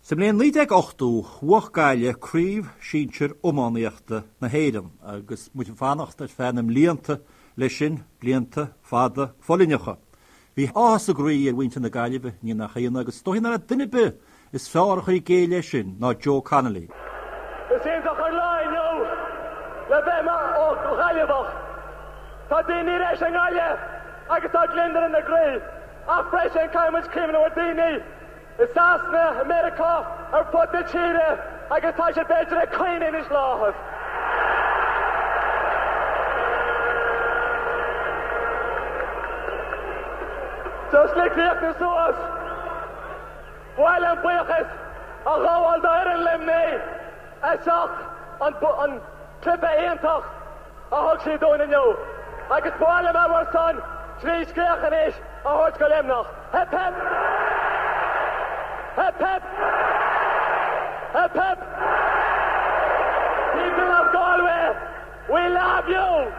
Sa mbliain 1980, bhuach Gaillimh Craobh Sinsir Iománaíochta na hÉireann agus muid ag fanacht ar feadh na mblianta leis sin, blianta fada foluaineacha. Bhí áthas a gcroí ar mhuintir na Gaillimhe, ní nach ionadh, agus is dóichí nach raibh duine ar bith is fearr a chur i gcéill é sin ná Joe Connolly. Is iontach an lá inniu le bheith i mo Ghaillimheach. Tá daoine ar ais i nGaillimh agus tá gliondar ina gcroí. Ach freisin caithfidh muid cuimhneamh ar daoine i Sasana, i Meiriceá, ar fud na tíre agus tá siad b'fhéidir ag caoineadh anois le áthas. Just le críochnú suas, ba mhaith liom buíochas a ghabháil d'fhoireann Luimnigh as ucht an cluiche iontach a thug siad dúinn inniu agus ba mhaith liom ar bhur son trí scréach anois a thabhairt go Luimneach. Hip hip! Hip hip! Hip hip! People of Galway, we love you!